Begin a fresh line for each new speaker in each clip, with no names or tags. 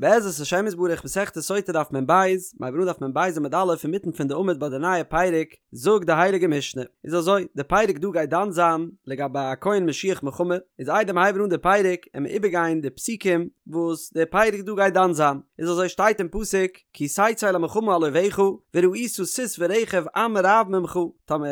בעזרת השם יתברך מסכת סוטה דף מ ב, מיר הייבן אן דף מ ב עמוד א' אינמיטן פון די עמוד ביי די נייע פרק, זאגט די הייליגע משנה, איז אזוי, די פרק דא גייט דן זיין לגבי א כהן משוח מלחמה, איז איידער מיר הייבן אן די פרק עמיר איבערגיין די פסוקים וואס די פרק דא גייט דן זיין, איז אזוי שטייט אין פסוק, כי תצא למלחמה על אויביך, וראית סוס ורכב עם רב ממך, טאמער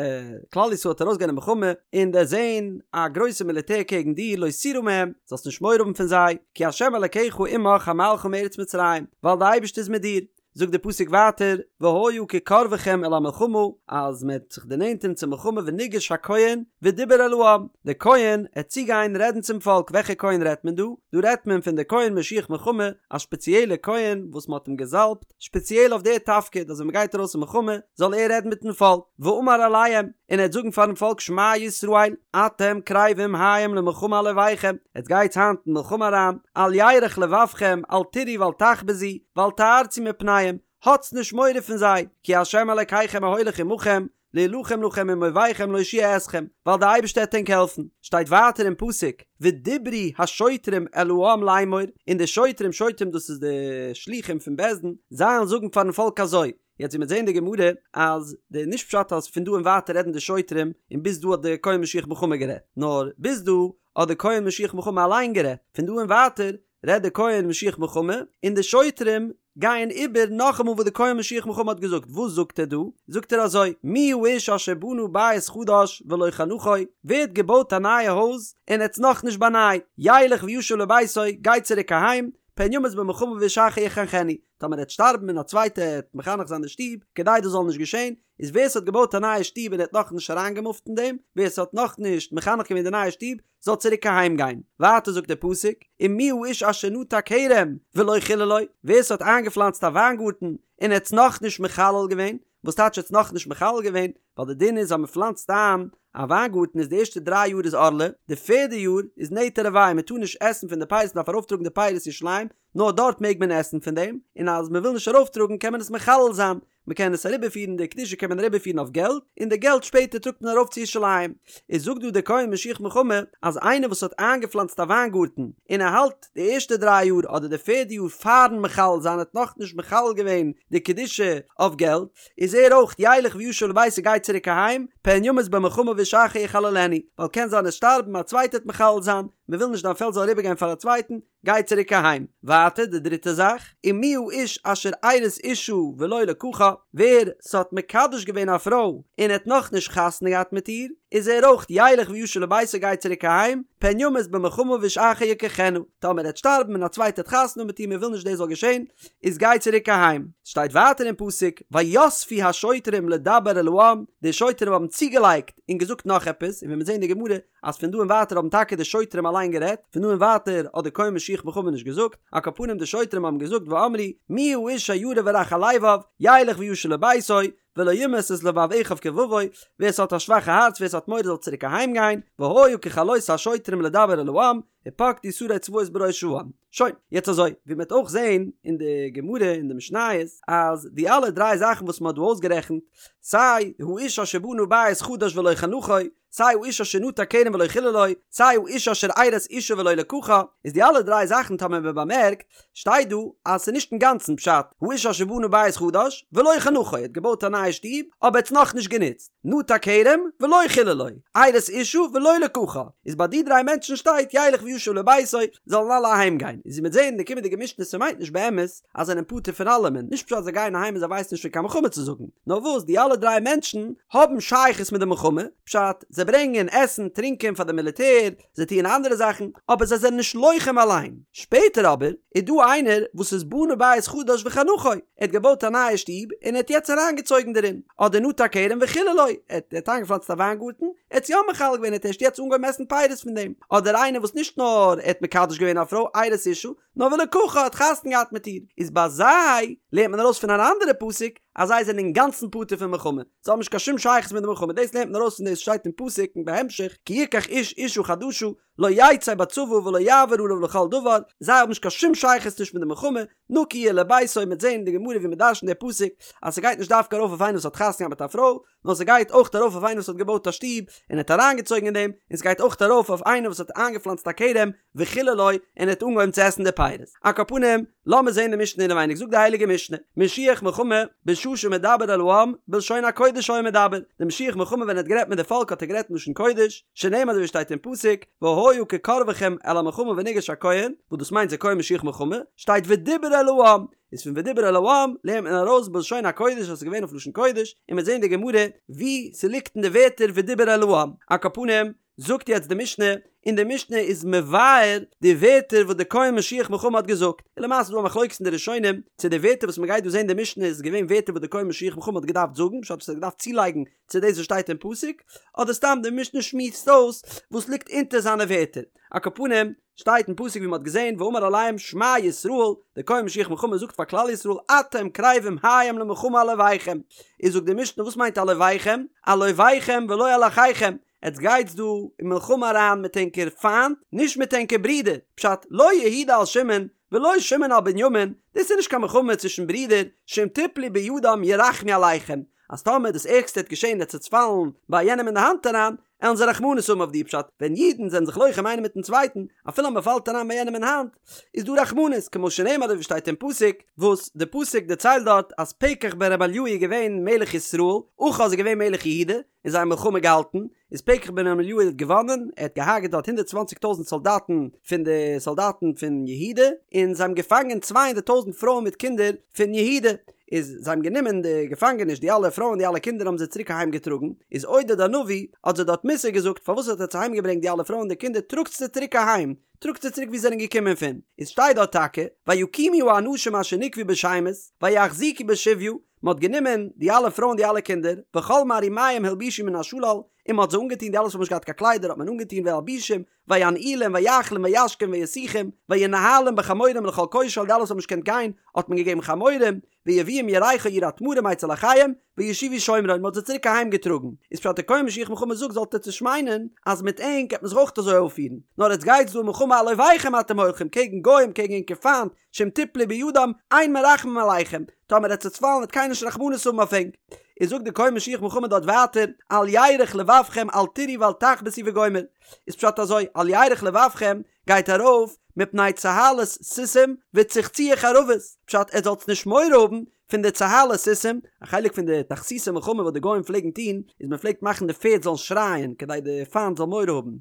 כלל ישראל וועט ארויסגיין אין מלחמה און דערזען א גרויסע מיליטער קעגן דיר לא תירא מהם, זאלסט נישט מורא האבן פון זיי, כי ה' אלקיך עמך המעלך מארץ מצרים, ווייל דער אייבערשטער איז מיט דיר. זאגט דער פסוק ווייטער, והיה כקרבכם אל המלחמה, אז מען וועט זיך דערנענטערן צום מלחמה וניגש הכהן ודיבר אל העם, דער כהן עט צוגיין רעדן צום פאלק, וועלכע כהן רעדט מען דא? דא רעדט מען פון דער כהן משוח מלחמה, א שפעציעלע כהן וואס מען האט אים געזאלבט שפעציעל אויף דער תפקיד אז ווען מען גייט ארויס אין מלחמה זאל ער רעדן מיטן פאלק, ואמר אליהם, און ער וועט זאגן פארן פאלק שמע ישראל, אתם קרבים היום למלחמה על אויביכם, עטס גייטס היינט אין מלחמה אריין, אל ירך לבבכם, אל תיראו ואל תחפזו, ואל תערצו מפניהם, האטס נישט מורא פון זיי, כי ה' אלקיכם ההולך עמכם, להילחם לכם עם אויביכם להושיע אתכם, ווייל דער אייבערשטער וועט ענק העלפן, שטייט ווייטער אין פסוק, ודיברו השוטרים אל העם לאמור, און די שוטרים, שוטרים דאס איז די שלוחים פון בית דין, זיי וועלן זאגן פארן פאלק אזוי, יעצט ווי מ'וועט זען אין די גמרא, אז די נישט פשט אז פון דא און ווייטער רעדן די שוטרים, און ביז דא האט די כהן משוח מלחמה גערעדט, נאר ביז דא האט די כהן משוח מלחמה אליין גערעדט, פון דא און ווייטער רעדט די כהן משוח מלחמה, און די שוטרים גייען איבער נאכאמאל וואס די כהן משוח מלחמה האט געזאגט, וואס זאגט ער דא? זאגט ער אזוי, מי האיש אשר בנה בית חדש ולא חנכו, ווער האט געבויט א נייע הויז און האט עס נאכנישט באנייט, ילך וישוב לביתו, גיי צוריק אהיים, פן ימות במלחמה ואיש אחר יחנכנו, טאמער ער וועט שטארבן און א צווייטער וועט מחנך זיין די שטוב, כדי דאס זאל נישט געשען, איז ווער ס'האט געבויט א נייע שטוב און ער האט נאכנישט אריינגעמופט אין דעם, ווער ס'האט נאכנישט מחנך געווען די נייע שטוב, זאל צוריק אהיים גיין. ווייטער זאגט דער פסוק, ומי האיש אשר נטע כרם ולא חיללו, ווער ס'האט איינגעפלאנצט א וויינגארטן און ער האט עס נאכנישט מחלל געווען, וואס טייטש ער האט עס נאכנישט מחלל געווען? ווייל די דין איז אז מ'פלאנצט איין א וויינגארטן איז די ערשטע דריי יאר איז ערלה, די פערדע יאר איז נטע רבעי, מ'טאר נישט עסן פון די פירות מ'דארף ארויפטראגן די פירות ירושלים, נאר דארט מעג מען עסן פון דעם, און אז מ'וויל נישט ארויפטראגן קען מען עס מחלל זיין, מען קען עס אריבערפירן די קדושה קען מען אריבערפירן אויף געלט, און די געלט שפעטער טראגט מען ארויף צו ירושלים. איז זאגט דא דער כהן משוח מלחמה אז איינער וואס האט איינגעפלאנצט א וויינגארטן און ער האלט די ערשטע דריי יאר אדער די פערדע יאר פארן מחלל זיין האט נאכנישט מחלל געווען די קדושה אויף געלט, איז ער אויך ילך וישוב לביתו גייט צוריק אהיים, פן ימות במלחמה ואיש אחר יחללנו, ווייל קען זיין עסט שטארבן א צווייטער וועט מחלל זיין, מען וויל נישט דיין פעלד זאל אריבערגיין פאר א צווייטן, גיי צוריק אהיים. ווייטער די דריטע זאך, ומי האיש אשר ארש אשה ולא לקחה, ווער ס'האט מקדש געווען א פרוי און האט נאכנישט חתונה געהאט מיט איר, איז ער אויך ילך וישוב לביתו גייט צוריק אהיים, פן ימות במלחמה ואיש אחר יקחנה, טאמער ער וועט שטארבן און א צווייטער האט חתונה מיט איר מען וויל נישט דאס זאל געשען, איז גיי צוריק אהיים. שטייט ווייטער אין פסוק, ויספו השוטרים לדבר אל העם, די שוטרים האבן צוגעלייגט און געזאגט נאך עפעס, און ווי מיר זעהן אין די גמרא אז פון דא און ווייטער האבן טאקע די שוטרים אליין גערעדט, פון דא און ווייטער האט די כהן משוח מלחמה נישט געזאגט, על כל פנים די שוטרים האבן געזאגט ואמרו מי האיש הירא ורך הלבב, ילך וישוב לביתו, ולא ימס את לבב אחיו כלבבו, ווער ס'האט א שוואכע הארץ ווער ס'האט מורא זאל צוריק אהיים גיין, והיה ככלות השוטרים לדבר אל העם, ופקדו שרי צבאות בראש העם. שוין, יעצט אזוי, ווי מ'וועט אויך זעהן אין די גמרא אין די משניות, אז די אלע דריי זאכן וואס מ'האט דא אויסגערעכנט, סיי האיש אשר בנה בית חדש ולא חנכו, סיי האיש אשר נטע כרם ולא חיללו, סיי האיש אשר ארש אשה ולא לקחה, איז די אלע דריי זאכן טאמער מען באמערקט, שטייט דא אז ס'איז נישט אינגאנצן פשט, האיש אשר בנה בית חדש ולא חנכו, ער האט געבויט א נייע שטוב, אבער ער האט עס נאכנישט גענוצט, נטע כרם ולא חיללו, ארש אשה ולא לקחה, איז ביי די דריי מענטשן שטייט ילך וישוב לביתו, זאלן אלע אהיים גיין, איז ווי מ'וועט זען אין די קומענדיגע משנה ס'מיינט נישט באמת אז זיי זענען פטור פון אלעמען, נישט פשט אז זיי גייען אהיים און זיי ווייסן נישט פון קיין מלחמה צו זאגן, נאר וואס די אלע דריי מענטשן האבן שייכות מיט די מלחמה, פשט, זיי ברענגען עסן, טרינקען פאר די מיליטער, זיי טוען אנדערע זאכן, אבער זיי זענען נישט לוחם אליין. שפעטער אבער איז דא איינער וואס איז בנה בית חדש וחנכו, ער האט געבויט א נייע שטוב און ער האט יעצט אריינגעצויגן דערין, אדער נטע כרם וחיללו, ער האט איינגעפלאנצט א וויינגארטן, ער האט עס יא מחלל געווען, ער האט ערשט יעצט אנגעהויבן עסן פירות פון דעם, אדער איינער וואס נישט נאר ער האט מקדש געווען א פרוי, ארש אשה, נאר ולקחה האט חתונה געהאט מיט איר, איז ביי זיי לערנט מען ארויס פון אן אנדערע פסוק אז זיי זענען אינגאנצן פטור פון מלחמה, זיי האבן נישט קיין שום שייכות מיט די מלחמה, דאס לערנט מען ארויס פון דאס שטייט אין פסוק און בהמשך כי יקח איש אשה חדשה. לא יצא בצבא ולא יעבור עליו לכל דבר, זיי האבן נישט קיין שום שייכות נישט מיט די מלחמה, נקי יהיה לביתו, מ'וועט זען אין די גמרא ווי מ'דרש'נט די פסוק אז ס'גייט נישט דווקא ארויף אויף איינער וואס האט חתונה געהאט מיט א פרוי, נאר ס'גייט אויך ארויף אויף איינער וואס האט געבויט א שטוב און האט אריינגעצויגן אין דעם, און ס'גייט אויך ארויף אויף איינער וואס האט איינגעפלאנצט א כרם וחיללו און האט אנגעהויבן צו עסן די פירות. על כל פנים, לאמיר זען די משנה אינעווייניג, זאגט די הייליגע משנה, משוח מלחמה בשעה שמדבר אל העם בלשון הקודש היה מדבר, די משוח מלחמה ווען ער האט גערעדט מיט די פאלק האט ער גערעדט אין לשון קודש, שנאמר אזוי ווי שטייט אין פסוק, והיה כקרבכם אל המלחמה ונגש הכהן, וואס דאס מיינט זה כהן משוח מלחמה, שטייט ודיבר אל העם, איז פון ודיבר אל העם לערנט מען ארויס בלשון הקודש אז ס'איז געווען אויף לשון קודש, און מ'וועט זען אין די גמרא ווי ס'ליגט אין די ווערטער ודיבר אל העם. על כל פנים, זאגט יעצט די משנה, און די משנה איז מבאר די ווערטער וואס די כהן משוח מלחמה האט געזאגט, און למעשה איז דא א מחלוקת אין די ראשונים צו די ווערטער וואס מ'גייט דא זען אין די משנה איז געווען ווערטער וואס די כהן משוח מלחמה האט געדארפט זאגן, פשט וואס ער האט געדארפט צולייגן צו דאס וואס שטייט אין פסוק, אדער סתם די משנה שמועסט אויס וואס ליגט אונטער זיינע ווערטער. על כל פנים, שטייט אין פסוק ווי מ'האט געזען ואמר אליהם שמע ישראל, דער כהן משוח מלחמה זאגט פאר כלל ישראל אתם קרבים היום למלחמה על אויביכם, איז זאגט די משנה וואס מיינט על אויביכם? על אויביכם ולא על אחיכם, עטס גייטס דא אין מלחמה אריין מיט ענקער פיינט, נישט מיט ענקער ברודער, פשט לא יהודה על שמעון ולא שמעון על בנימין, דאס איז נישט קיין מלחמה צווישן ברידער, שאם תפלו בידם ירחמו עליכם, אז טאמער דאס ערגסטע וועט געשען עטס וועטס פאלן ביי יענעם אין די האנט אריין, עלן זיי רחמנות האבן אויף דיר פשט, ווען אידן זענען זיך לוחם איינער מיטן צווייטן, אפילו אז מען פאלט אריין ביי יענעם אין האנט, איז דא רחמנות, כמו שנאמר אזוי ווי שטייט אין פסוק, וואס די פסוק דערציילט דארט אז פקח בן רמליהו איז געווען מלך ישראל, אחז איז געווען מלך יהודה, און זיי האבן מלחמה געהאלטן, איז פקח בן רמליהו האט געוואנען, ער האט געהארגעט דארט הונדערט צוואנציג טויזנט סאלדאטן פון די סאלדאטן פון יהודה, און זיי האבן געפאנגען צוויי הונדערט טויזנט פרויען מיט קינדער פון יהודה, איז זיי האבן גענומען די געפאנגעניש די אלע פרויען די אלע קינדער האבן זיי צוריק אהיים געטראגן, איז עודד הנביא האט זיי דארט מוסר געזאגט פארוואס האט עטץ אהיים געברענגט די אלע פרויען די קינדער טראגטס זיי צוריק אהיים, טראגטס זיי צוריק ווי זיי זענען געקומען פון, איז שטייט דארט טאקע ויקימו האנשים אשר נקבו בשמות ויחזיקו בשביה, מען האט גענומען די אלע פרויען די אלע קינדער, וכל מערומיהם הלבישו מן השלל, און מען האט זיי אנגעטון די אלע וואס האבן נישט געהאט קיין קליידער האט מען אנגעטון וילבישום, וינעילום ויאכילום וישקום וישיחום, וינהלום בחמורים לכל כושל די אלע וואס האבן נישט געקענט גיין האט מען געגעבן חמורים, ויביאום ירכו עיר התמרים אצל אחיהם, וישובו שומרון מען האט זיי צוריק אהיים געטראגן, איז פשט דער כהן משוח מלחמה זאגט זאלט עטץ נישט מיינען אז מיט ענק גייט מען זיך אויך אזוי אויפפירן, נאר עטץ גייטס דא אין מלחמה על אויביכם אתם הולכים קעגן גוים קעגן ענקער פיינט, שאם תפלו בידם אין מרחמים עליכם, טאמער עטץ וועטס פאלן וועט קיינער נישט רחמנות האבן אויף ענק. איז זאגט דער כהן משוח מלחמה דארט ווייטער, אל ירך לבבכם אל תיראו ואל תחפשו וגומר. איז פשט אזוי, אל ירך לבבכם גייט ארויף מפני צהלת סוסים וצחצוח חרבות, פשט עטס זאלטס נישט מורא האבן פון די צהלת סוסים, א חלק פון די תכסיסי מלחמה וואס די גוים פלעגן טון, איז מען פלעגט מאכן די פערד זאלן שרייען כדי די פיינט זאל מורא האבן,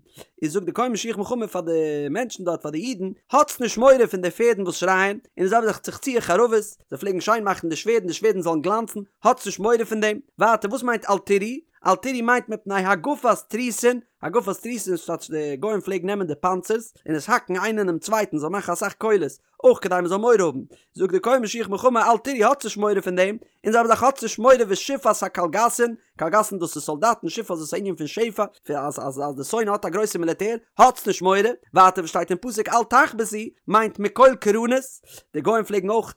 איז זאגט די כהן משוח מלחמה פאר די מענטשן דארט פאר די אידן, האטס נישט מורא פון די פערדן וואס שרייען, און די זעלבע זאך צחצוח חרבות, זיי פלעגן שיין מאכן די שווערדן די שווערדן זאלן גלאנצן, האטס נישט מורא פון דעם, ווייטער וואס מיינט אל תיראו? אל תיראו מיינט מפני הגפת תריסין, הגפת תריסין איז טייטש די גוים פלעגן נעמען די פאנצערס און עס האקן איינער אינעם צווייטן זאל מאכן אסאך קולות, אויך כדי מען זאל מורא האבן, זאגט דער כהן משוח מלחמה אל תיראו האטס נישט מורא פון דעם, און זעלבע זאך האטס נישט מורא ושפעת הקלגסין, קלגסין דאס איז סאלדאטן, שפעת דאס איז א ענין פון שפע, אז אז אז די שונא האט א גרויסע מיליטער, האטס נישט מורא, ווייטער וואס שטייט אין פסוק אל תחפשו, מיינט מקול קרנות, די גוים פלעגן אויך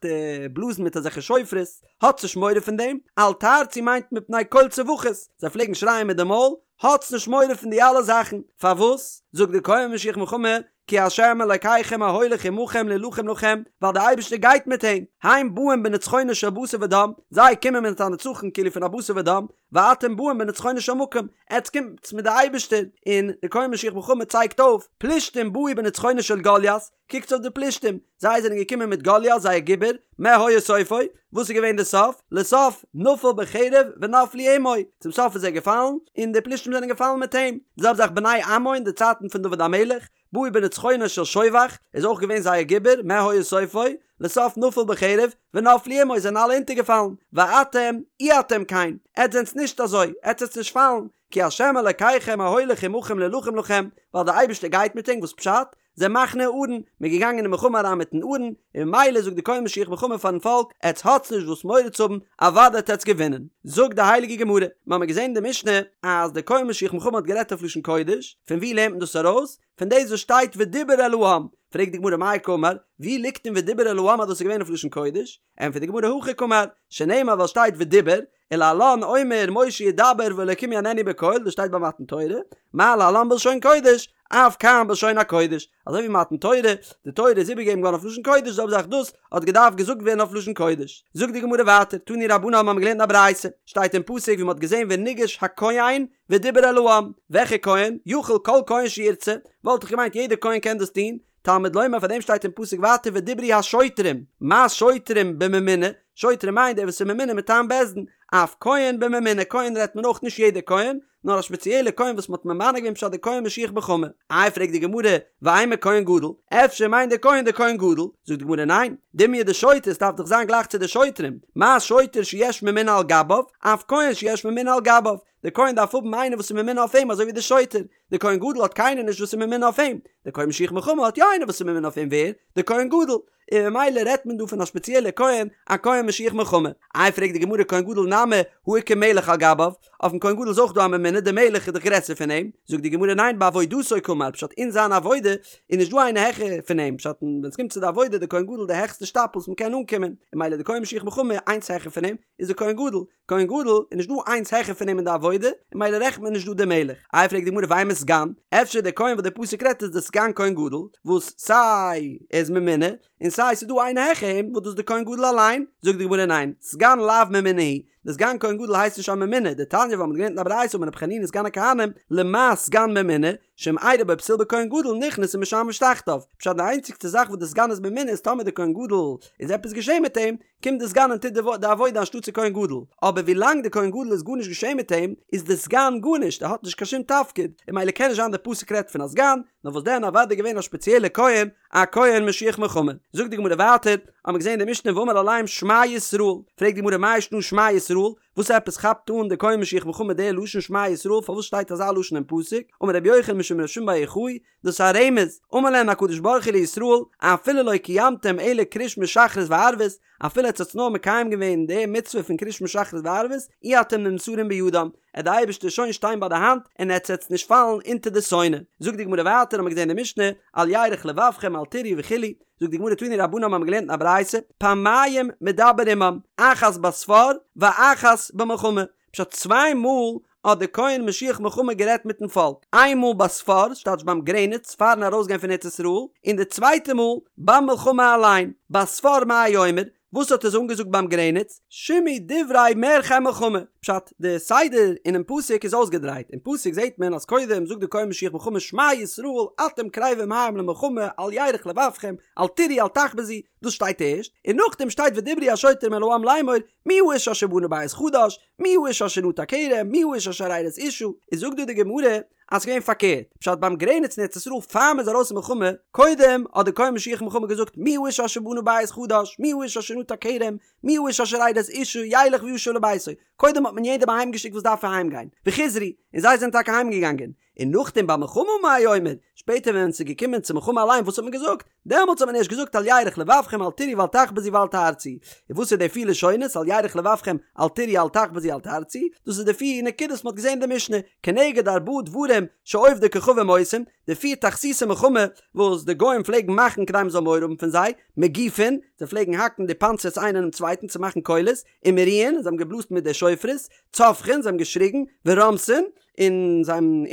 בלאזן מיט אזעלכע שופרות, האטס נישט מורא פון דעם, אל תערצו מיינט מפני קול צווחות, זיי פלעגן שרייען מיט די מויל, האטס נישט מורא פון די אלע זאכן, פארוואס? זאגט דער כהן משוח מלחמה, כי ה' אלקיכם ההולך עמכם להילחם לכם, ווייל דער אייבערשטער גייט מיט ענק, הם באים בנצחונו של בשר ודם, זיי קומען מיט א נצחון כאילו פון א בשר ודם, ואתם באים בנצחונו של מקום, עטס קומטס מיט די אייבערשטער, און דער כהן משוח מלחמה צייגט אויף, פלישתים באו בנצחונו של גוליית, קוקטס אויף די פלישתים, זיי זענען געקומען מיט גוליית זייער גיבור, מה היה סופו? וואס איז געווען די סוף? לסוף נפל בחרב ונפלו עמו, צום סוף איז ער געפאלן, און די פלישתים זענען געפאלן מיט אים. די זעלבע זאך בני עמון אין די צייטן פון דוד המלך, באו בנצחונו של שובך, איז אויך געווען זייער גיבור, מה היה סופו? לסוף נפל בחרב ונפלו עמו, זענען אלע אונטערגעפאלן. ואתם, אי אתם כן, עטס זענטס נישט אזוי, עטס וועטס נישט פאלן, כי ה' אלקיכם ההולך עמכם להילחם לכם, ווייל דער אייבערשטער גייט מיט ענק, וואס פשט? זה מחנה הארון, מען איז געגאנגען אין מלחמה אריין מיטן ארון, און ממילא זאגט די כהן משוח מלחמה פארן פאלק, עטס האטס נישט וואס מורא צו האבן, אוודאי וועט עטס געווינען. זאגט די הייליגע גמרא, מיר האבן געזען אין די משנה אז די כהן משוח מלחמה האט גערעדט אויף לשון קודש, פון וואו לערנט מען דאס ארויס? פון דאס וואס שטייט ודיבר אל העם, פרעגט די גמרא מאי קאמר, וואו ליגט אין ודיבר אל העם אז דאס איז געווען אויף לשון קודש? ענטפערט די גמרא הכי קאמר, שנאמר ווייל שטייט ודיבר, ולהלן אומר משה ידבר והאלקים יעננו בקול, דאס שטייט ביי מתן תורה, מה להלן בלשון קודש, אף כאן בלשון הקודש, אזוי ווי מתן תורה, די תורה איז איבערגעגעבן געווארן אויף לשון קודש, זעלבע זאך דאס האט געדארפט געזאגט ווערן אויף לשון קודש. זאגט די גמרא ווייטער, תנו רבנן האבן געלערנט אין א ברייתא, שטייט אין פסוק ווי מען האט געזען וניגש הכהן ודיבר אל העם, וועלכע כהן? יכול כל כהן שירצה, וואלט איך געמיינט יעדער כהן קען דאס טון, תלמוד לומר פאר דעם שטייט אין פסוק ווייטער ודברו השוטרים, מה שוטרים בממונה, שוטרים מיינט דער וואס איז ממונה מטעם בית דין, אף כהן בממונה, כהן רעדט מען אויך נישט יעדער כהן, נאר א שפעציעלע כהן וואס מ'האט ממנה געווען פשט די כהן משוח מלחמה. איי פרעגט די גמרא, ואימא כהן גדול, אפשר מיינט דער כהן דער כהן גדול? זאגט די גמרא ניין, דומיא דשוטר, עס דארף דאך זיין גלייך צו די שוטרים, מה שוטר שיש ממונה על גביו, אף כהן שיש ממונה על גביו, דער כהן דארף האבן איינער וואס איז ממונה אויף אים אזוי ווי דער שוטר, דער כהן גדול האט קיינער נישט וואס איז ממונה אויף אים, דער כהן משוח מלחמה האט יא איינער וואס איז ממונה אויף אים, ווער? דער כהן גדול. און ממילא רעדט מען דא פון א שפעציעלע כהן, א כהן משוח מלחמה. איי פרעגט די גמרא כהן גדול נמי הא איכא מלך על גביו, אויפן כהן גדול איז אויך דא א ממונה, דער מלך איז דאך גרעסער פון אים, זאגט די גמרא ניין בעבודתו קאמר, פשט אין זיין עבודה איז נישט דא איינער העכער פון אים, פשט ווען עס קומט צו די עבודה די כהן גדול די העכסטע שטאפל וואס מען קען אנקומען, און ממילא די כהן משוח מלחמה איינס העכער פון אים איז די כהן גדול, כהן גדול איז נישט דא איינס העכער פון אים אין די עבודה, און ממילא רעכנט מען נישט דא די מלך. איי פרעגט די גמרא ואימא סגן, אפשר דער כהן וואס דער פסוק רעדט איז דער סגן כהן גדול, וואס סיי ער איז ממונה, און סיי ס'איז דא איינער העכער אים וואס דאס איז דער כהן גדול אליין, זאגט די גמרא ניין, סגן לאו ממונה הוא, דער סגן כהן גדול הייסט נישט א ממונה, דתניא ווייל מ'האט געלערנט אין א ברייתא אמר רבי חנינא סגן הכהנים, למה סגן ממונה, שאם אירע בו פסול בכהן גדול נכנס ומשמש תחתיו, פשט די איינציגסטע זאך וואס דער סגן איז ממונה איז טאמער דער כהן גדול איז עפעס געשען מיט אים, קומט די סגן און טוט די עבודה אנשטאטס די כהן גדול, אבער ווי לאנג די כהן גדול איז גארנישט געשען מיט אים, איז די סגן גארנישט, ער האט נישט קיין שום תפקיד, און ממילא קען נישט זיין די פסוק רעדט פון א סגן, נאר וואס דען אוודאי געווען א שפעציעלע כהן, א כהן משוח מלחמה. זאגט די גמרא ווייטער, האמיר געזען אין די משנה ואמר אליהם שמע ישראל, פרעגט די גמרא מאי שנא שמע ישראל, וואס עפעס כאפט אן די כהן משוח מלחמה די לשון שמע ישראל, פארוואס שטייט אזא לשון אין פסוק, אמר רבי יוחנן משום רבי שמעון בר יוחאי, דאס איז א רמז, אמר להן הקדוש ברוך הוא לישראל, אפילו לא קיימתם אלא קריאת שמע שחרית וערבית, אפילו עטס האטס נאר מקיים געווען די מצוה פון קריאת שמע שחרית וערבית, אי אתם נמסרים בידם, עט די אייבערשטער שוין שטיין ביי די האנט און עטס עטס נישט פאלן אונטער די שונא. זאגט די גמרא ווייטער האמיר געזען אין די משנה, אל ירך לבבכם אל תיראו וכו', זאגט די גמרא תנו רבנן האמיר געלערנט אין א ברייתא, פעמיים מדבר עמם, אחת בספר ואחת במלחמה, פשט צוויי מאל האט דער כהן משוח מלחמה גערעדט מיטן פאלק, איין מאל בספר, ס'טייטש ביים גרעניץ פארן ארויסגיין פון ארץ ישראל, און די צווייטע מאל ביים מלחמה אליין, בספר מה היה אומר, וואס האט ער זיי אנגעזאגט ביים גרעניץ, שמעו דברי מערכי מלחמה, פשט, די סדר אינעם פסוק איז אויסגעדרייט, אין פסוק זעט מען אז קודם זאגט דער כהן משוח מלחמה שמע ישראל אתם קרבים היום למלחמה אל ירך לבבכם אל תיראו אל תחפזו, דאס שטייט ערשט, און נאכדעם שטייט ודברו השוטרים אל העם לאמור מי האיש אשר בנה בית חדש, מי האיש אשר נטע כרם, מי האיש אשר ארש אשה, איז זאגט דא די גמרא אז ס'געווען פארקערט, פשט ביים גרעניץ אין ארץ ישראל פאר מ'איז ארויס אין מלחמה, קודם האט די כהן משוח מלחמה געזאגט מי האיש אשר בנה בית חדש, מי האיש אשר נטע כרם, מי האיש אשר ארש אשה, ילך וישוב לביתו, קודם האט מען יעדעם אהיים געשיקט וואס דארף אהיים גיין, וחזרו, און זיי זענען טאקע אהיים געגאנגען, און נאכדעם במלחמה מה היה אומר, שפעטער ווען ס'איז געקומען צו מלחמה אליין וואס האט מען געזאגט? דעמאלטס האט מען ערשט געזאגט אל ירך לבבכם אל תיראו ואל תחפזו ואל תערצו. און וואס איז די פיר לשונות אל ירך לבבכם אל תיראו אל תחפזו אל תערצו? דאס איז די פיר נקודות וואס מען האט געזען אין די משנה, כנגד ארבעה דברים שעובדי כוכבים עושים, די פיר תכסיסי מלחמה וואס די גוים פלעגן מאכן כדי מען זאל מורא האבן פון זיי, מגיפין, זיי פלעגן האקן די פאנצערס איינער אינעם צווייטן צו מאכן קולות, ומריעין, זיי האבן געבלאזט מיט די שופרות, צווחין, זיי האבן געשריגן, ורומסין, און זיי האבן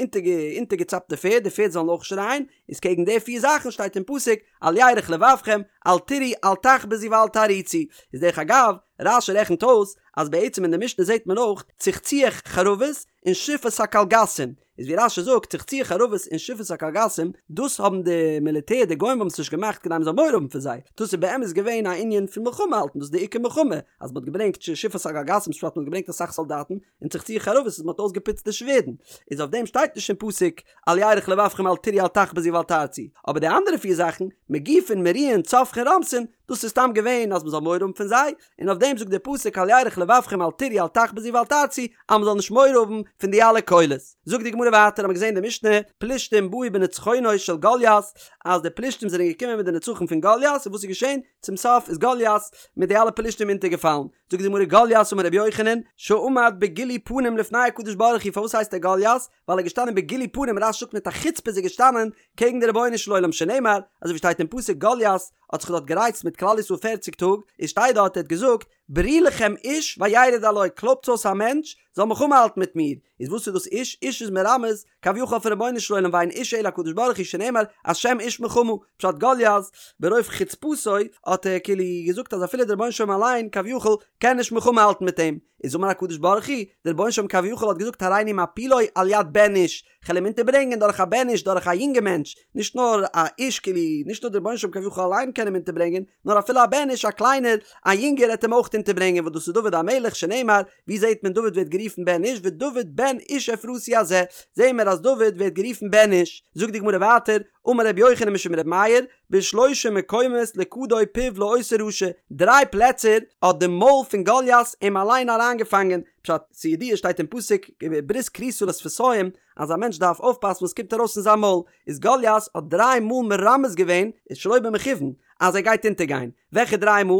אונטערגעצאפט די פערד, די פערד זאלן אויך שרייען, איז קעגן די פיר זאכן שטייט אין פסוק אל ירך לבבכם אל תיראו אל תחפזו ואל תעריצו, איז דרך אגב, רש"י רעכנט אויס אז בעצם אין די משנה זעט מען אויך צחצוח חרבות און שפת הקלגסים, איז ווי רש"י זאגט צחצוח חרבות און שפת הקלגסים דאס האבן די מיליטער די גוים האבן עס נישט געמאכט כדי מען זאל מורא האבן פון זיי, דאס איז באמת געווען א ענין פון מלחמה האלטן דאס איז די עיקר מלחמה אז מען האט געברענגט שפת הקלגסים פשט מען האט געברענגט אסאך סאלדאטן און צחצוח חרבות איז מען האט אויסגעפוצט די שווערדן, איז אויף דעם שטייט נישט אין פסוק אל ירך לבבכם אל תיראו אל תחפזו ואל תערצו, אבער די אנדערע פיר זאכן, מגיפין מריעין צווחין רומסין, דאס איז סתם געווען אז מען זאל מורא האבן פון זיי, און אויף דעם זאגט דער פסוק אל ירך לבבכם אל תיראו אל תחפזו ואל תערצו, אז מען זאל נישט מורא האבן פון די אלע קולות. זאגט די גמרא ווייטער האבן מיר געזען די משנה, פלישתים באו בנצחונו של גוליית, אז די פלישתים זענען געקומען מיט די נצחון פון גוליית, און וואס איז געשען? צום סוף איז גוליית מיט די אלע פלישתים אונטערגעפאלן. זאגט די גמרא גוליית אמר רבי יוחנן שעמד בגילוי פנים לפני הקדוש ברוך הוא פארוואס הייסט ער גוליית ווייל ער איז געשטאנען בגילוי פנים רש"י זאגט מיט א חוצפה איז ער געשטאנען קעגן די רבונו של עולם שנאמר אזוי ווי שטייט אין פסוק גוליית האט זיך דארט גערייצט מיט כלל ישראל פערציג טאג איז שטייט דארט ער האט געזאגט. ברו לכם איש וירד אלי, קלויבטס אויס א מענטש זאל מלחמה האלטן מיט מיר, איז וואס איז דאס איש? איש איז מרמז כביכול אויפן רבונו של עולם ואין איש אלא הקדוש ברוך הוא שנאמר השם איש מלחמה, פשט גוליית ברוב חוצפתו האט ער כאילו געזאגט אז אפילו דער רבונו של עולם אליין כביכול קען נישט מלחמה האלטן מיט אים, איז אמר הקדוש ברוך הוא, דער רבונו של עולם כביכול האט געזאגט הריני מפילו על יד בן איש, כ'על אים אונטערברענגען דורך א בן איש דורך א יונגע מענטש, נישט נאר א איש כאילו, נישט נאר דער רבונו של עולם כביכול אליין קען אים אונטערברענגען, נאר אפילו א בן איש א קליינער, א יונגער עט אים אויך אונטערברענגען וואס דאס איז דוד המלך שנאמר, ווי זעהט מען דוד ווערט גערופן בן איש ודוד בן איש אפרתי הזה, זעהן מיר אז דוד ווערט גערופן בן איש, זאגט די גמרא ווייטער, אמר רבי יוחנן משום רבי מאיר, בשלושה מקומות לכדו פיו לאותו רשע, דריי פלעצער האט די מויל פון גוליית אים אליין אריינגעפאנגען, פשט, ס'ידוע שטייט אין פסוק ברית כרותה לשפתים אז א מענטש דארף אויפפאסן וואס קומט ארויס פון זיין מויל, איז גוליית האט דריי מאל מרמז געווען, איז שלא במכוון, אז ער גייט אונטערגיין, וועלכע דריי מאל?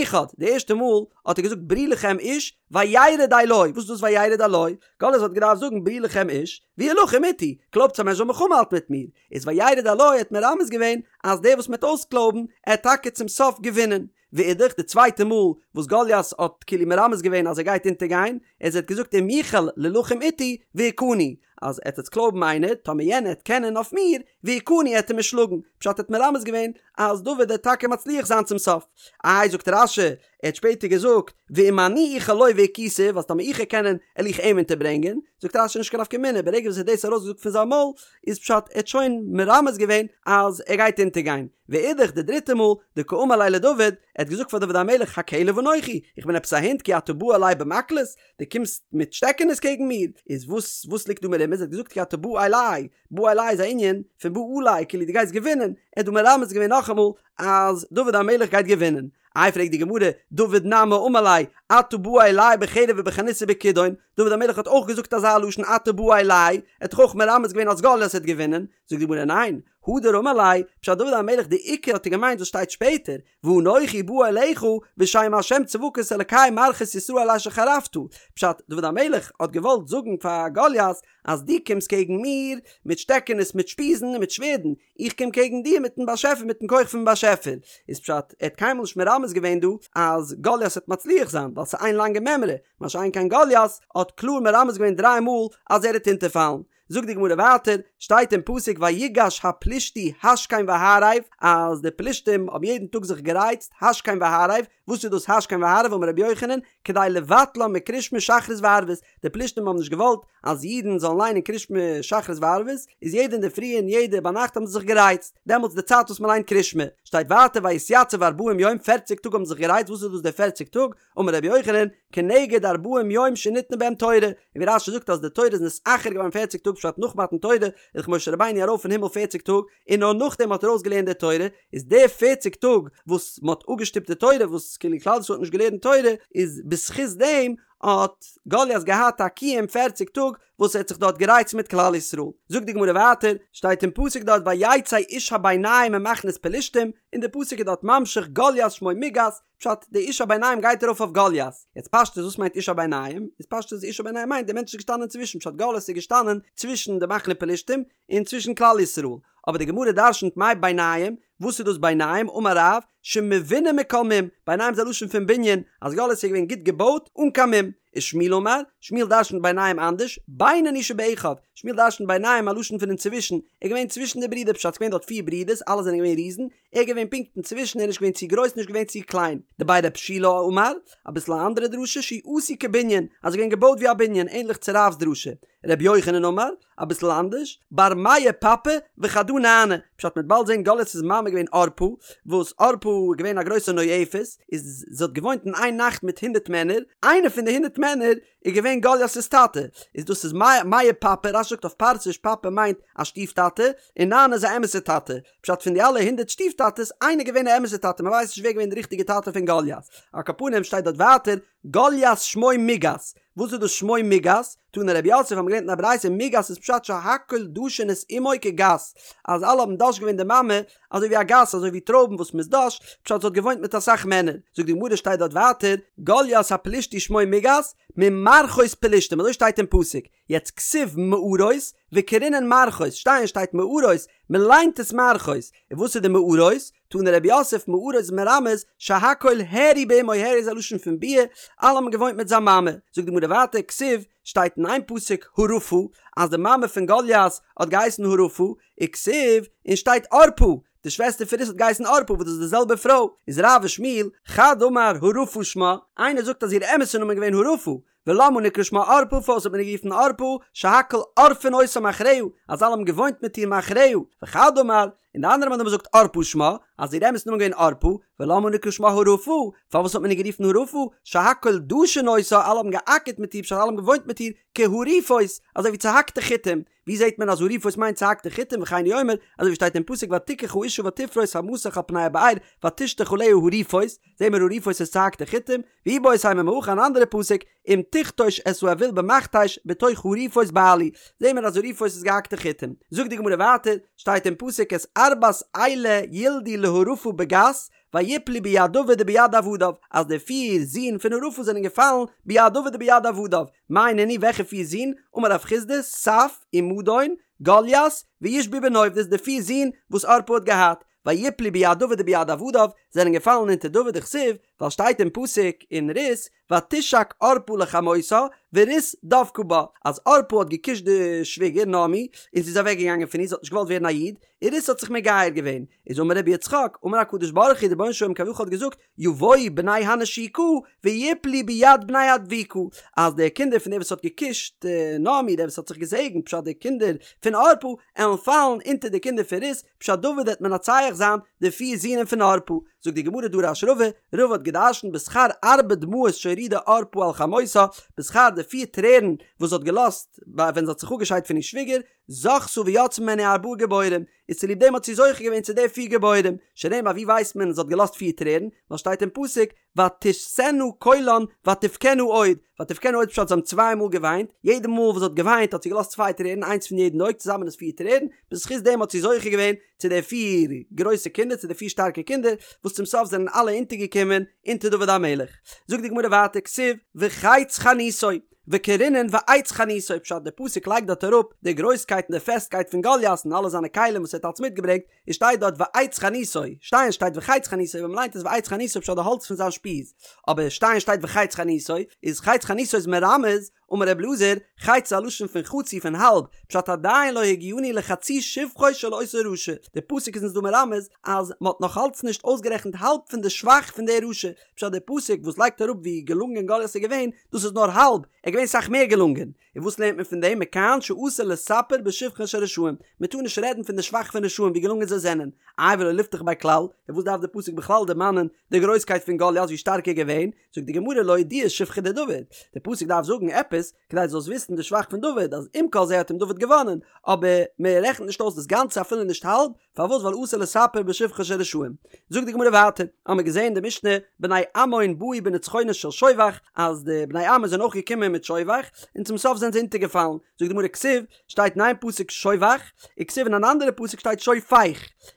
אחד, די ערשטע מאל האט ער געזאגט ברו לכם איש וירד אלי, וואס איז דאס וירד אלי? גוליית האט געדארפט זאגן ברו לכם איש וילחם אתי, קלויבטס א מענטש זאל מלחמה האלטן מיט מיר, איז וירד אלי האט מרמז געווען אז דער וואס מ'עט אויסקלויבן עט טאקע צום סוף געווינען. ואידך, די צווייטע מאל וואס גוליית האט כאילו מרמז געווען אז ער גייט אונטערגיין, איז ער האט געזאגט אם יוכל ללחם אתי והכני, אז עט עטס קלויבן איינער, טאמער יענער עט קענען אויף מיר, והכני עט ער מיר שלאגן, פשט ער האט מרמז געווען אז דוד עט טאקע מצליח זיין צום סוף. איי זאגט רש"י, ער האט שפעטער געזאגט, ואם אני אוכל לו והכיתיו, אז טאמער איך וועל קענען, על איך אים אונטערברענגען, זאגט רש"י נישט קיין נפקא מינה, ברגע וואס ער האט דאס ארויסגעזאגט פון זיין מויל, איז פשט ער האט שוין מרמז געווען אז ער גייט אונטערגיין. ואידך די דריטע מאל, דקאמר ליה לדוד, ער האט געזאגט פאר דוד המלך הכלב אנכי, איך בין עפעס א הונט כי אתה בא אלי במקלות, דו קומסט מיט שטעקענעס קעגן מיר, איז וואס וואס ליגט דא מרומז, ער האט געזאגט כי אתה בא אלי, בא אלי איז א ענין פון בא עלי, כאילו דו גייסט געווינען, ער האט דא מרמז געווען נאכאמאל אז דוד המלך גייט געווינען. איי פרעגט די גמרא, דוד נמי אמר ליה, אתה בא אלי בחרב ובחנית ובכידון, דוד המלך האט אויך געזאגט אזא לשון אתה בא אלי, ער האט דאך אויך מרמז געווען אז גוליית וועט געווינען, זאגט די גמרא ניין, הדר אמר ליה, פשט דוד המלך די עיקר האט ער געמיינט וואס שטייט שפעטער, ואנכי בא אליך בשם ה' צבקות אלקי מערכות ישראל אשר חרפת, פשט דוד המלך האט געוואלט זאגן פאר גוליית אז דו קומסט קעגן מיר מיט שטעקענעס מיט שפיזן און מיט שווערדן, איך קום קעגן דיר מיטן באשעפער מיטן כח פון באשעפער, איז פשט ער האט קיינמאל נישט מרמז געווען דא אז גוליית וועט מצליח זיין ווייל ס'איז איין לאנגע מימרא, מה שאין כן גוליית האט קלאר מרמז געווען דריי מאל אז ער וועט אונטערפאלן. זאגט די גמרא ווייטער, שטייט אין פסוק ויגש הפלישתי השכם והערב, אז די פלישתים האבן יעדן טאג זיך גערייצט השכם והערב, וואס איז דאס השכם והערב אמר רבי יוחנן, כדי לבטלם מקריאת שמע שחרית וערבית, די פלישתים האבן נישט געוואלט אז אידן זאלן ליינען קריאת שמע שחרית וערבית, איז יעדע אינדערפרי און יעדע ביינאכט האבן זיי זיך גערייצט, דעמאלטס די צייט וואס מען ליינט קריאת שמע, שטייט ווייטער ויתיצב ארבעים יום, פערציג טאג האבן זיך גערייצט, וואס איז דאס די פערציג טאג, אמר רבי יוחנן, כנגד ארבעים יום שניתנה בהם תורה, און ווי רש"י זאגט אז די תורה איז נתאחר געווארן פערציג טאג פשט נאך מתן תורה איז דאך משה רבינו ארויף אין הימל פערציג טאג און נאר נאכדעם האט ער אויסגעלערנט די תורה, איז די פערציג טאג וואס מען האט אפגעשטופט די תורה וואס כאילו כלל ישראל האט נישט געלערנט תורה איז בזכות דעם האט גוליית געהאט א קיום פערציג טאג וואס ער האט זיך דארט גערייצט מיט כלל ישראל. זאגט די גמרא ווייטער, שטייט אין פסוק דארט ויצא איש הביניים ממחנות פלשתים, און די פסוק איז דארט ממשיך גוליית שמו מגת, פשט, די איש הביניים גייט ארויף אויף גוליית. יעצט פשטות וואס מיינט איש הביניים? איז פשטות איש הביניים מיינט די מענטש איז געשטאנען צווישן, פשט גוליית איז געשטאנען צווישן די מחנה פלשתים און צווישן כלל ישראל. אבער די גמרא דרשנ'ט מאי ביניים, וואס איז דאס ביניים? אמר רב, שמבונה מכל מום, ביניים איז א לשון פון בנין, אז גוליית איז געווען גוט געבויט אן קיין מום. ושמואל אמר, שמואל דרשנ'ט ביניים אנדערש, בינוני שבאחיו, שמואל דרשנ'ט ביניים א לשון פון אינצווישן, ער איז געווען צווישן די ברידער, פשט ס'איז געווען דארט פיר ברידערס אלע זענען געווען ריזן, ער איז געווען פונקט אינצווישן, ער איז נישט געווען צו גרויס נישט געווען צו קליין. דבי רב שילא אמר, אביסל א אנדערע דרשה, שהוא עשוי כבנין, אז ער איז געווען געבויט ווי א בנין, ענליך צו רב'ס דרשה. רבי יוחנן אמר, אביסל אנדערש, בר מאה פפי וחדא נאנא, פשט מ'וועט באלד זען גולית'ס מאמע איז געווען ערפה, וואס ערפה איז געווען א גרויסע נואפת, איז זי האט געוואוינט אין איין נאכט מיט הונדערט מענער, איינער פון די הונדערט מענער איז געווען גולית'ס טאטע, איז דאס איז מאה פפי, רש"י זאגט אויף פרסיש פפי מיינט א שטיף טאטע, און נאנא איז א אמת'ע טאטע, פשט פון די אלע הונדערט שטיף טאטעס, איינער געווען א אמת'ע טאטע, מ'ווייסט נישט ווער געווען די ריכטיגע טאטע פון גוליית. על כל פנים שטייט דארט ווייטער, גוליית שמו מגת, וואס איז דאס שמו מגת? תנא רב יוסף האבן געלערנט אין א ברייתא מגת איז פשט שהכל דשין את אמו כגת, אז אלע האבן דש געווען די מאמע אזוי ווי א גת אזוי ווי טרויבן וואס מ'איז דש, פשט זי האט געוואוינט מיט אסאך מענער. זאגט די גמרא שטייט דארט ווייטער, גוליית הפלישתי שמו מגת, ממערכות פלשתים אזוי שטייט אין פסוק, יעצט כתיב מערות וקרינן מערכות, שטיין שטייט מערות, מ'ליינט עס מערכות, און וואס איז די מערות? תני רב יוסף מערה איז מרמז שהכל הערו באמו הערו איז א לשון פון ביאה, אלע האבן געוואוינט מיט זיין מאמע. זאגט די גמרא ווייטער כתיב, שטייט אין איין פסוק הרפה אז די מאמע פון גוליית האט געהייסן הרפה, וכתיב, און שטייט ערפה, די שוועסטער פון רות האט געהייסן ערפה וואס דאס איז די זעלבע פרוי, איז רב ושמואל, חד אמר הרפה שמה, איינער זאגט אז איר אמת'ע נאמען איז געווען הרפה, ולמה נקרא שמה ערפה פארוואס האט מען איר גערופן ערפה, שהכל עורפין אותה מאחריה, אז אלע האבן געוואוינט מיט איר מאחריה, וחד אמר, און די אנדערע מאן דאמר זאגט ערפה שמה, אז איר אמת'ע נאמען איז געווען ערפה, ולמה נקרא שמה הרפה, פארוואס האט מען איר גערופן הרפה, שהכל דשין אותה, אלע האבן געאקערט מיט איר פשט אלע האבן געוואוינט מיט איר, כהרופות, אזוי ווי צוהאקטע חיטים, ווי זעט מען אז הרופות מיינט צוהאקטע חיטים וכן הוא אומר, אזוי ווי שטייט אין פסוק ותקח האשה ותפרוש המסך על פני הבאר ותשטח עליה הרופות, זעהן מיר הרופות איז צוהאקטע חיטים, ואיבעית אימא מהכא אן אנדערע פסוק, אם תכתוש את האויל במכתש בתוך הרופות בעלי, זעהן מיר אז הרופות איז געהאקטע חיטים. זאגט די גמרא ווייטער, שטייט אין פסוק את ארבעת אלה ילדו להרפה בגת, ויפלו ביד דוד וביד עבדיו, אז די פיר זין פון הרפה זענען געפאלן ביד דוד וביד עבדיו, מאי נינהו וועלכע פיר זין? אמר רב חסדא, סף, ומדון, גוליית, וישבי בנוב, דאס איז די פיר זין וואס ערפה האט געהאט, ויפלו ביד דוד וביד עבדיו, זענען געפאלן אונטער דוד דכתיב, ווייל שטייט אין פסוק אין רות, ותשק ערפה לחמותה, ורות דבקה בה, אז ערפה האט געקושט די שוויגער נעמי, און זי איז אוועק געגאנגען פון איר, זי האט נישט געוואלט ווערן א איד, און רות האט זיך מגייר געווען, איז אמר רבי יצחק, אמר הקדוש ברוך הוא, דער רבונו של עולם כביכול האט געזאגט, יבואו בני הנשיקה ויפלו ביד בני הדבוקה, אז די קינדער פון דער וואס האט געקושט נעמי, דער וואס האט זיך געזעגנט, פשט די קינדער פון ערפה, עלן פאלן אונטער די קינדער פון רות, פשט דוד וועט מנצח זיין די פיר זינען פון ערפה. זאגט די גמרא דרש רבא, רבא האט געדרשנט בשכר ארבע דמעות שהורידה ערפה על חמותה, בשכר די פיר טרערן וואס זי האט געלאזט ווען זי האט זיך אפגעשיידט פון איר שוויגער, זכתה ויצאו ממנה ארבעה גיבורים, איז צוליב דעם האט זי זוכה געווען צו די פיר גיבורים, שנאמר ווי ווייסט מען זי האט געלאזט פיר טרערן, ווייל שטייט אין פסוק ותשאנה קולן ותבכינה עוד, ותבכינה עוד פשט זיי האבן צוויי מאל געוויינט, יעדע מאל וואס זי האט געוויינט האט זי געלאזט צוויי טרערן איינס פון יעדן אויג צוזאמען איז פיר טרערן, בזכות דעם האט זי זוכה געווען צו די פיר גרויסע קינדער צו די פיר שטארקע קינדער, וואס צום סוף זענען אלע אונטערגעקומען אונטער דוד המלך. זאגט די גמרא ווייטער כתיב וחץ חניתו, וקרינן ועץ חניתו, פשט די פסוק לייגט דארט אראפ די גרויסקייט און די פעסטקייט פון גוליית און אלע זיינע כלים וואס ער האט אלץ מיטגעברענגט, און שטייט דארט ועץ חניתו, שטיין שטייט וחץ חניתו, ווען מ'ליינט עס ועץ חניתו פשט די האלץ פון זיין שפיז, אבער שטיין שטייט וחץ חניתו, איז חץ חניתו איז מרמז, אמר ר' אלעזר, חץ איז א לשון פון חצי פון האלב, פשט עדיין לא הגיענו לחצי שבחו של אותו רשע, די פסוק איז אונז דא מרמז אז מ'האט נאך אלץ נישט אויסגערעכנט האלב פון די שבח פון די רשע, פשט די פסוק וואס לייגט אראפ ווי געלונגען גוליית איז געווען, דאס איז נאר האלב, ער איז געווען סאך מער געלונגען. און וואס לערנט מען פון דעם? מכאן שאסור לספר בשבחן של רשעים, מען טאר נישט רעדן פון די שבח פון רשעים ווי געלונגען זיי זענען, איי ולא ליפתח ביה כלל, און וואס דארף די פסוק בכלל דערמאנען די גרויסקייט פון גוליית ווי שטארק ער איז געווען, זאגט די גמרא לאודויי שבחיה דדוד, די פסוק דארף זאגן עפעס כדי דו זאלסט וויסן די שבח פון דוד, אז עם כל זה האט אים דוד געוואנען, אבער מען רעכנט נישט אויס דאס גאנצע אפילו נישט האלב, פארוואס ווייל אסור לספר בשבחן של רשעים. זאגט די גמרא ווייטער, האמיר געזען אין די משנה בני עמון באו בנצחונו של שובך, אז די בני עמון זענען אויך געקומען מיט שובך, און צום סוף זענען זיי אונטערגעפאלן, זאגט די גמרא כתיב, שטייט אין איין פסוק שובך, וכתיב אין אן אנדערע פסוק שטייט שופך,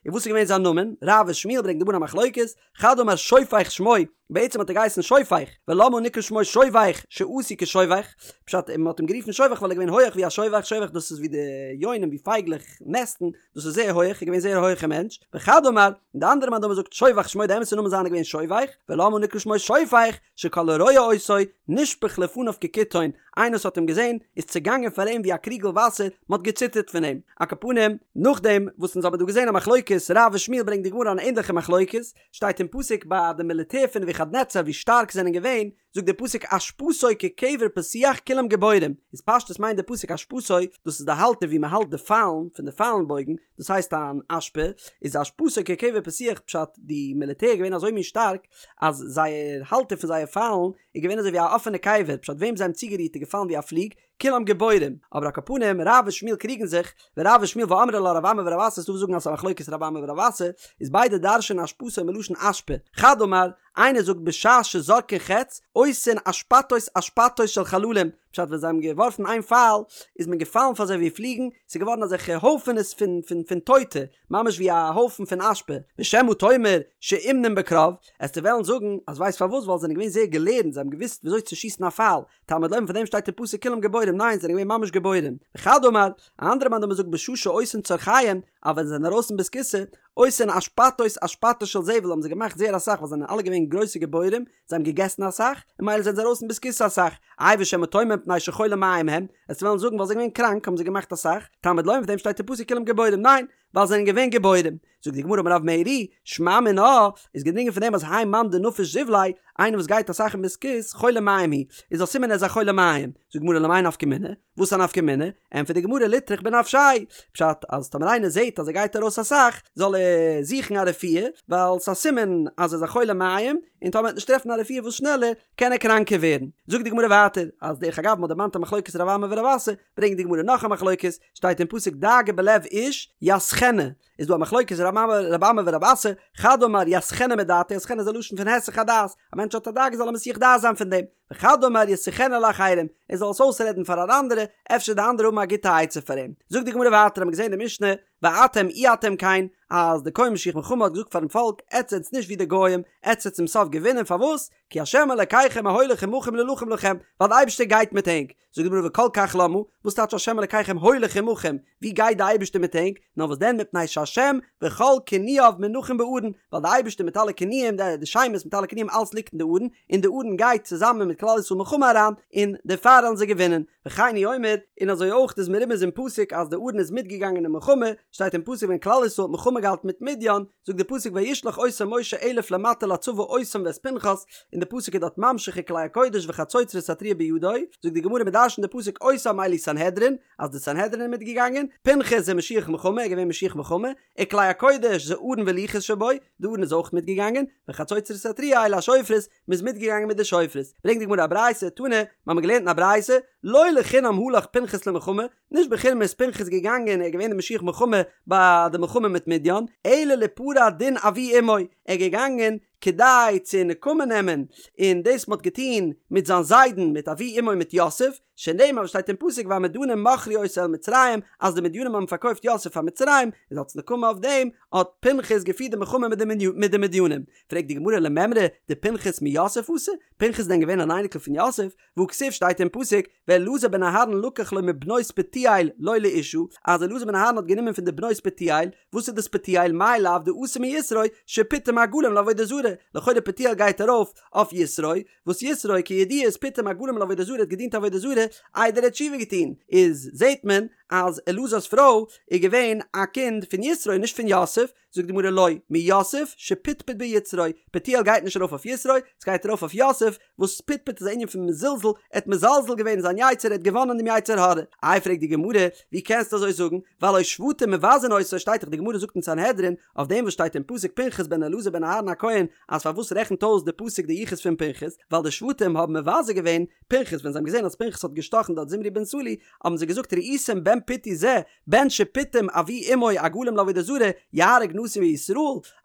און וואס איז געווען זיין נאמען? רב ושמואל ברענגט די גמרא א מחלוקת, חד אמר שופך שמו, בעצם האט ער געהייסן שופך, ולמה נקרא שמו שובך שעשוי כשובך, פשט מען האט אים גערופן שובך ווייל ער איז געווען הויעך ווי א שובך, שובך דאס איז ווי די יונים ווי פייגלעך נעסטן, דאס איז זייער הויעך, ער איז געווען זייער א הויעכע מענטש, וחד אמר, און די אנדערע מאן דאמר זאגט שובך שמו די אמת'ע נאמען זיינע איז געווען שובך, ולמה נקרא שמו שופך, שכל הרואה אותו, נשפך לפניו כקיתון, איינער וואס האט אים געזען, איז צעגאנגען פאר אים ווי א קריגל וואסער, מען האט געציטערט פון אים. על כל פנים, נאכדעם וואס אונז האבן דא געזען א מחלוקת רב ושמואל ברענגט די גמרא אן ענדליכע מחלוקת, שטייט אין פסוק ביי די מיליטער פון נבוכדנצר ווי שטארק זענען געווען, זאגט דער פסוק אשפתו כקבר פתוח כולם גבורים, איז פשטות מיינט דער פסוק אשפתו, דאס איז די האלטער ווי מען האלט די פיילן פון די פיילן בויגן, דאס הייסט אן אשפה, איז אשפתו כקבר פתוח פשט די מיליטער איז געווען אזוי מין שטארק אז זייער האלטער פון זייער פיילן איז געווען אזוי ווי א אפענע קבר, פשט וועם זיי האבן צוגערירט איז געפאלן ווי א פליג, כולם גיבורים, אבער על כל פנים רב ושמואל קריגן זיך, ורב ושמואל ואמרי לה רב אמי ורב אסי ס'דא וואס זאגן אז ס'איז א מחלוקת רב אמי ורב אסי, איז ביידע דרש'ענען אשפתו מלשון אשפה, חד אמר, איינער זאגט בשעה שזורקין חץ, עושין אשפתות אשפתות של חללים, פשט ווען זיי האבן געווארפן איין פייל, איז מען געפאלן פאר זיי ווי פליגן, ס'איז געווארן אזעלכע הויפענעס פון פון פון טויטע, ממש ווי א הויפן פון אשפה, ושמא תאמר שאומנין בקרב, עסטו וועלן זאגן אז ווייסט פארוואס ווייל זיי זענען געווען זייער געלערנט זיי האבן געוואוסט וויאזוי צו שיסן א פייל, תלמוד לומר פון דעם שטייט אין פסוק כולם גיבורים ניין זענען געווען ממש גיבורים, וחד אמר, א אנדערע מאן דאמר זאגט בשעה שעושין צרכיהם, אז ווען זיי זענען ארויס אין בית הכסא, עושין אשפתות אשפתות של זבל האבן זיי געמאכט זייער אסאך ווייל זיי זענען אלע געווען גרויסע גיבורים, זיי האבן געגעסן אסאך, און ממילא זענען זיי ארויס אין בית הכסא אסאך, איי ושמא תאמר מפני שחולי מעיים הם, וועסט וועלן זאגן ווייל זיי זענען געווען קראנק האבן זיי געמאכט אסאך, תלמוד לומר פאר דעם שטייט אין פסוק כולם גיבורים, ניין, ווייל זיי זענען געווען גיבורים. זאגט די גמרא אמר רב מרי, שמע מינה, איז געדרינגען פון דעם אז האי מאן דנפיש זיבליה, איינער וואס גייט אסאך אין בית הכסא, חולי מעיים הוא, איז א סימן ער איז א חולה מעיים. זאגט די גמרא למאי נפקא מינה? וואס א נפקא מינה? ענטפערט די גמרא ליטרח בנפשיה, פשט אז טאמער איינער זעט אז ער גייט ארויס אסאך, זאל ער זוכן א רפואה, ווייל ס'איז א סימן אז ער איז א חולה מעיים, און טאמער ער וועט נישט טרעפן א רפואה וואס שנעלער, קען ער קראנקער ווערן. זאגט די גמרא ווייטער, אז דרך אגב מ'האט דערמאנט א מחלוקת רב אמי ורב אסי, ברענגט די גמרא נאך א מחלוקת, שטייט אין פסוק דאגה בלב איש יסחנה, איז דא א מחלוקת רב אמי ורב אסי, חד אמר יסחנה מדעתיה, יסחנה איז א לשון פון היסח הדעת, א מענטש האט א דאגה זאל ער מסיח דעת זיין פון דעם, וחד אמר ישיחנה לאחרים, ער זאל עס אויסרעדן פאר אן אנדערע, אפשר די אנדערע האבן א גוטע עצה פאר אים. זאגט די גמרא ווייטער, האבן מיר געזען אין די משנה, ואתם אי אתם כן, אז די כהן משוח מלחמה האט געזאגט פארן פאלק, עטס זענטס נישט ווי די גוים, עטס וועט צום סוף געווינען, פארוואס? כי ה' אלקיכם ההולך עמכם להילחם לכם, ווייל די אייבערשטער גייט מיט ענק. זאגט די גמרא וכל כך למה, וואס טייטש השם אלקיכם הולך עמכם, ווי גייט די אייבערשטער מיט ענק, נאר וואס דען מפני שהשם וכל כינויו מונחים בארון, ווייל די אייבערשטער מיט אלע כינויים, די שמות מיט אלע כינויים אלעס ליגט אין די ארון, און די ארון גייט צוזאמען מיט כלל ישראל מלחמה אריין, און דערפאר וועלן זיי געווינען, וכן הוא אומר, און אזוי אויך איז מרומז אין פסוק אז די ארון איז מיטגעגאנגען אין מלחמה, שטייט אין פסוק ווען כלל ישראל האט מלחמה געהאלטן מיט מדין, זאגט די פסוק וישלח אותם משה אלף למטה לצבא אותם ואת פנחס, און די פסוק איז דארט ממשיך וכלי הקודש וחצוצרות התרועה בידו, זאגט די גמרא מ'דרש'נט די פסוק אותם אלו סנהדרין, אז די סנהדרין איז מיטגעגאנגען, פנחס זה משוח מלחמה, ער איז געווען משוח מלחמה, וכלי הקודש זה ארון ולוחות שבו, די ארון איז אויך מיטגעגאנגען, וחצוצרות התרועה אלו השופרות, מ'איז מיטגעגאנגען מיט די שופרות. ברענגט די גמרא א ברייתא, תנא, מ'האמיר געלערנט אין א ברייתא, לא לחינם הלך פנחס למלחמה, נישט בחינם איז פנחס געגאנגען, ער איז געווען די משוח מלחמה ביי די מלחמה מיט מדין, אלא ליפרע דין אבי אמו, ער איז געגאנגען כדי צו נקמה נעמען אין דאס מ'האט געטון מיט זיין זיידן מיט אבי אמו מיט יוסף, שנאמר וואס שטייט אין פסוק והמדנים מכרו אותו אל מצרים, אז די מדינים האבן פארקויפט יוסף פאר מצרים, איז אלס נקמה אויף דעם האט פנחס געפירט די מלחמה מיט די מדינים. פרעגט די גמרא למימרא דפנחס מיוסף אתא, פנחס איז דען געווען אן אייניקל פון יוסף? והכתיב שטייט אין פסוק ואלעזר בן אהרן לקח לו מבנות פוטיאל לו לאשה, אז אלעזר בן אהרן האט גענומען פון די בנות פוטיאל, וואס איז דאס פוטיאל מאי לאו דאתא מיתרו שפיטם עגלים לעבודה זרה, לכאורה פוטיאל גייט ארויף אויף יתרו, וואס יתרו כידוע איז פיטם עגלים לעבודה זרה האט געדינט עבודה זרה איידער ער האט תשובה געטון, איז זעט מען אז אלעזר'ס פרוי איז געווען א קינד פון יתרו נישט פון יוסף, זאגט די גמרא לא, מיוסף שפטפט ביצרו, פוטיאל גייט נישט ארויף אויף יתרו, עס גייט ארויף אויף יוסף, וואס פטפט איז א ענין פון מזלזל, ער האט מזלזל געווען אין זיין יצר, ער האט געוואנען דעם יצר הרע. איי פרעגט די גמרא, ווי קענסטו אזוי זאגן, והלא שבטים מבזין אותו, שטייט דאך די גמרא זאגט אין סנהדרין, אויף דעם וואס שטייט אין פסוק פנחס בן אלעזר בן אהרן הכהן, אז פארוואס רעכנט אויס די פסוק די יחוס פון פנחס, ווייל די שבטים האבן מבזה געווען פנחס ווען זיי האבן געזען אז פנחס האט געשטאכן דארט זמרי בן סלוא, האבן זיי געזאגט ראיתם בן פוטי זה, בן שפיטם אבי אמו עגלים לעבודה זרה יהרוג נשיא מישראל,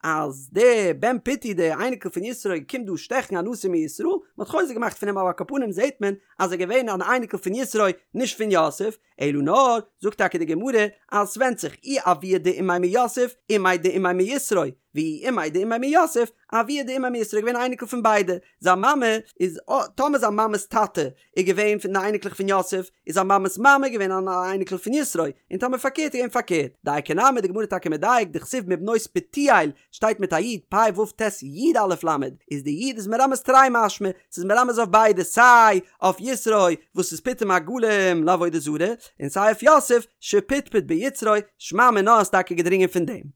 אז דער בן פוטי דער אייניקל פון יתרו קומט דא שטעכן א נשיא מישראל, מען האט חוזק געמאכט פון אים אבער על כל פנים זעט מען אז ער געווען אן אייניקל פון יתרו נישט פון יוסף, אלא נאר זאגט טאקע די גמרא אז ס'ווענדט זיך אי אבוה דאימיה מיוסף אימיה דאימיה מיתרו, ואי אימיה דאימיה מיוסף, אבוה דאימיה מיתרו איז געווען א אייניקל פון ביידע, זיין מאמע איז, טאמער זיין מאמע'ס טאטע איז געווען פון די אייניקלעך פון יוסף, איז זיין מאמע'ס מאמע געווען אן אייניקל פון יתרו, און טאמער פארקערט איז געווען פארקערט. דייקא נמי די גמרא טאקע מדייק, דכתיב מבנות פוטיאל, שטייט מיט א י', פ' ו' ט' י' א' ל', איז די י' איז מרמז תרי משמע, ס'איז מרמז אויף ביידע, סיי אויף יתרו וואס איז פיטם עגלים לעבודה זרה, און סיי אויף יוסף שפטפט ביצרו, שמע מינה איז טאקע געדרינגען פון דעם.